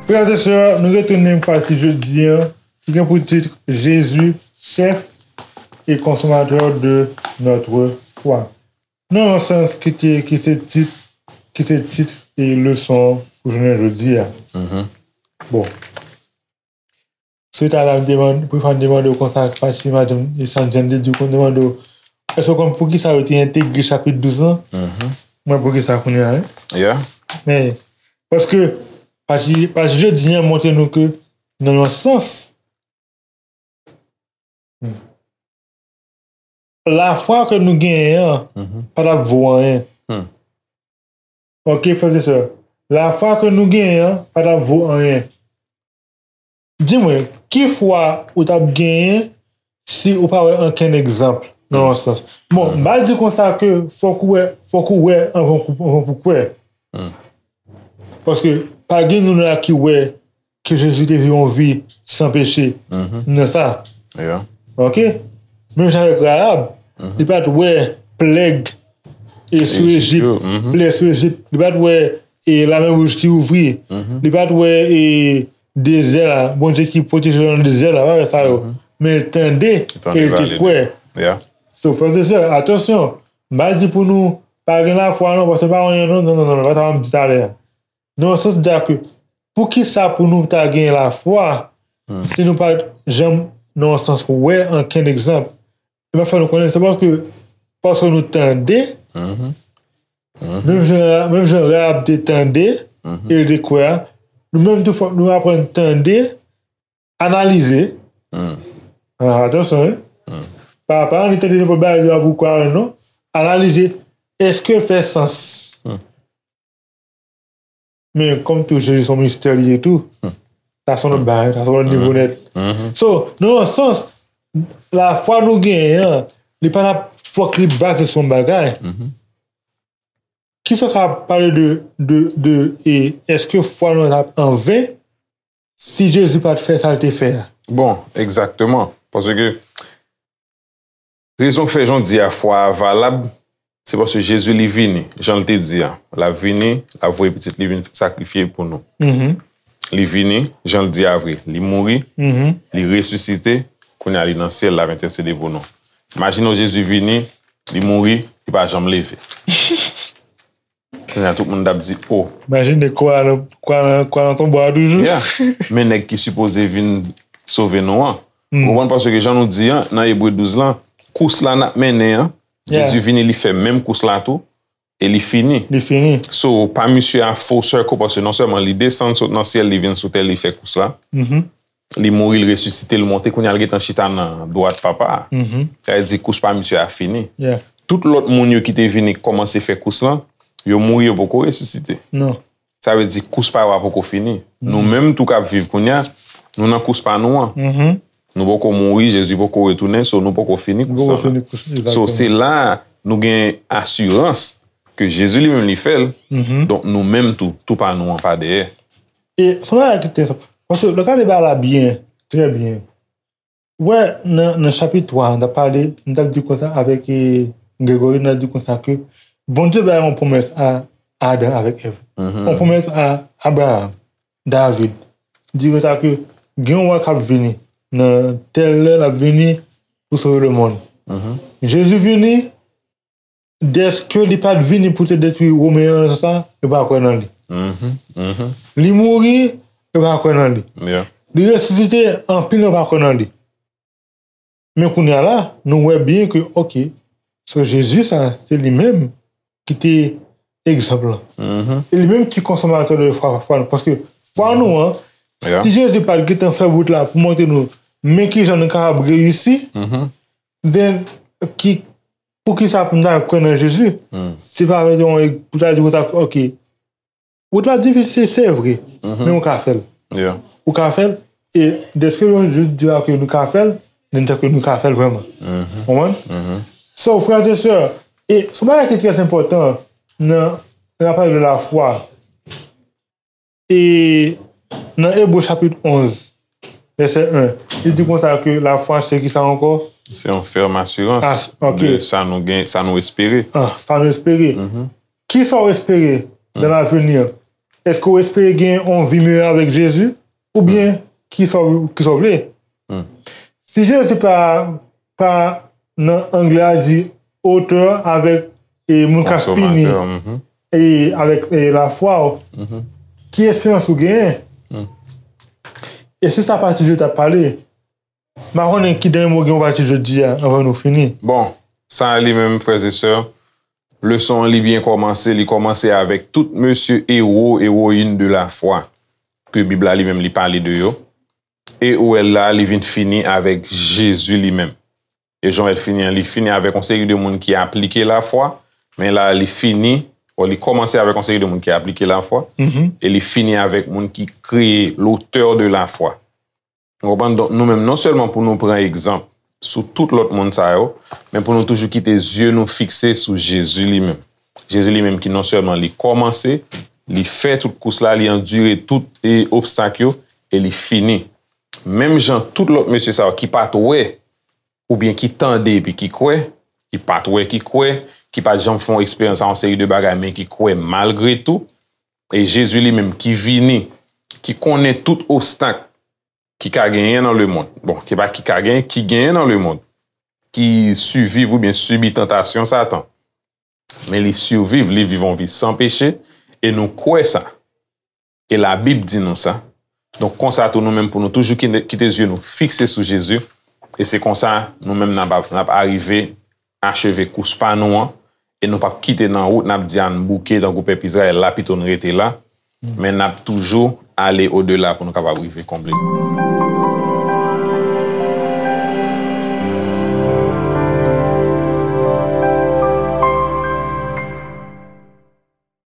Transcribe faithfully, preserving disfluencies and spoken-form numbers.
Frè e sè, nou retounen pou pati jodi a, ki gen pou tit Jésus, chef et consommateur de notre foi. Nan yon sans ki te, ki se tit, ki se tit e leson pou jounen jodi a. Bon. Si w ta la, m demann, pou fè m demande w konsa, pati madanm Sandjèn te di w, konn demande w, èske w konn poukisa yo te entegre chapit douz lan? Mwen poukisa kounye a, wi. Men, paske, pati, pati jodi a montre nou ke, nan yon sans, lafwa ke nou genyen an pa t ap vo anyen. Ok, frè e sè, lafwa ke nou genyen an pa t ap vo anyen. Di mwen, ki fwa ou t ap genyen si ou pa wè ankenn egzanp, nan yon sans? Bon, m pa di konsa ke fòk ou wè, fòk ou wè anvan, anvan pou kwè. Paske pa gen nou la ki wè ke Jezi te viv yon vi san peche nan sa. Ok? Menm jan avèk Rahab, li pa t wè pleg e sou Ejip, pleg sou Ejip, li pa t wè e Lamè Wouj ki ouvri, li pa t wè e dezè a, Bondye ki pwoteje nan dezè a, pa wè sa yo. Men l tande e l te kwè. So, frè e sè, atansyon, m pa di pou nou pa gen lafwa non, paske pa anyen non, non, non, non, pa sa m di talè a. Nan yon sans, di a ke, poukisa pou nou ta gen lafwa si nou pa janm, nan yon sans, wè ankenn egzanp? E m ap fè nou konnen, se paske, paske nou tande, menm jan, menm jan Rahab te tande, e l te kwè a, nou menm tou fòk nou aprann tande, analize. Ah, atansyon, wi. Pa, pa annik tande nenpòt bagay yo ap ou kwè, non. Analize, èske l fè sans? Men kòm tou Jezi se yon mistè li ye tou, sa se yon lòt bagay, sa se yon lòt nivo nèt. So, nan yon sans, lafwa nou genyen an, li pa t ap fòk li baze sou yon bagay. Kisa w ka pale de, de, de, e èske fwa nou an t ap anven si Jezi pa t fè sa l te fè a? Bon, egzakteman. Paske rezon k fè jan w di a fwa a valab, se paske Jezi li vini, jan l te di a. L ap vini, l ap voye pitit li vin sakrifye pou nou. Li vini, jan l di a vre. Li mouri, li resisite, kounye a li nan syèl, l ap entèsede pou nou. Imajine w Jezi vini, li mouri, li pa janm leve. Kounye a tout moun t ap di, o. Imajine kwa nan, kwa nan, kwa nan tonbo a toujou. Yeah. Men nèg ki sipoze vin sove nou an. Ou konprann, paske jan nou di an, nan Ebre douz lan, kous la n ap mennen an, Jezi vini, li fè menm kous la tou, e li fini. Li fini. So, pa misye a full circle, paske non sèlman li desann sot nan syèl, li vin sou tè, li fè kous la. Li mouri, li resisite, li monte, kounye a l gentan chita nan dwat Papa a. Sa vle di kous pa misye a fini. Tout lòt moun yo ki te vini kòmanse fè kous lan, yo mouri, yo poko resisite. Sa vle di kous pa yo a poko fini. Nou menm tou k ap viv kounye a, nou nan kous pa nou an. Nou poko mouri, Jezi poko retounen, so nou poko fini kous sa. So se la a nou gen asirans ke Jezi li menm li fè l, donk nou menm tou, tou pa nou an pa dèyè. E se yon bagay ki enteresan. Paske lè w gade bagay la byen, trè byen, ou wè nan, nan chapit twa a, n t ap pale, n t ap di konsa avèk, e, Gregory, n t ap di konsa ke Bondye bay yon pwomès a Adan avèk Èv. Yon pwomès a Abraham, David. Di konsa ke gen yon wa k ap vini. Nan tèl lè, l ap vini pou sove lemonn. Jezi vini, dèske li pa t vini pou te detwi Women an nan sans sa, yo pa kwè nan li. Li mouri, yo pa kwè nan li. Li resisite, anpil nan yo pa kwè nan li. Men kounye a la, nou wè byen ke, ok, so Jezi sa, se li menm ki te egzanp lan. E li menm ki konsomatè de fwa, fwa nou. Paske fwa nou an, si Jezi pa t gentan fè wout la pou montre nou men kijan nou kapab reyisi, then, ki, poukisa pou n ta kwè nan Jezi? Se pa vre, pou ta di konsa, ok, wout la difisil, se vre, men ou ka fè l. Ou ka fè l, e dèske nou jis di la ke nou ka fè l, men dèske nou ka fè l vrèman. Konprann? So, frè e sè, e se yon bagay ki trè enpòtan nan, nan pale de lafwa. E nan Ebre chapit onz, vèsè en. Li di konsa ke lafwa se ki sa ankò? Se yon fèm asirans Ah, ok. de sa nou gen, sa nou espere. Ah, sa nou espere. Ki sa w espere dans l'avenir? Èske w espere gen yon vi meyè avèk Jezi? Oubyen ki sa w ki sa w vle? Si Jezi pa, pa nan anglè a di auteur avèk e moun k ap fini Konsòmatè, mhm. e avèk e lafwa w, ki esperans ou genyen? E se sa pati Jezi t ap pale. M pa konnen ki dènye mo gen pou pati jodi a anvan nou fini. Bon, sa li menm, frè e sè, leson an li byen kòmanse, li kòmanse avèk tout mesye ewo, ewoyin de lafwa ke Bib la li menm li pale de yo. E ou wè la, li vin fini avèk Jezi li menm. E jan w wè l fini an, li fini avèk yon seri de moun ki aplike lafwa, men la, li fini, bon, li kòmanse avèk yon seri de moun ki aplike lafwa, e li fini avèk moun ki kreye, l'auteur de la foi. Ou konprann? Donk, nou menm, non sèlman pou nou pran egzanp sou tout lòt moun sa yo, men pou nou toujou kite zye nou fikse sou Jezi li menm. Jezi li menm ki non sèlman li kòmanse, li fè tout kous la, li andire tout e obstak yo, e li fini. Menm jan tout lòt mesye sa yo ki pa t wè, oubyen ki tande epi ki kwè, ki pa t wè ki kwè, ki pa t janm fè yon eksperyans a yon seri de bagay, men ki kwè malgre tou, e Jezi li menm ki vini, ki konnen tout obstak ki ka genyen nan lemonn. Bon, ki pa ki ka genyen, ki genyen nan lemonn. Ki siviv oubyen sibi tantasyon Satan. Men li siviv, li viv yon vi san peche, e nou kwè sa. E Labib di nou sa. Donk, konsa tou, nou menm pou nou toujou kite, kite zye nou fikse sou Jezi. E se konsa, nou menm n ap, n ap arive acheve kous pa nou an. E nou p ap kite nan wout, n ap di a n bouke, tankou pèp Izrayèl la, pito n rete la. Men n ap toujou ale odela pou nou kapab rive konble.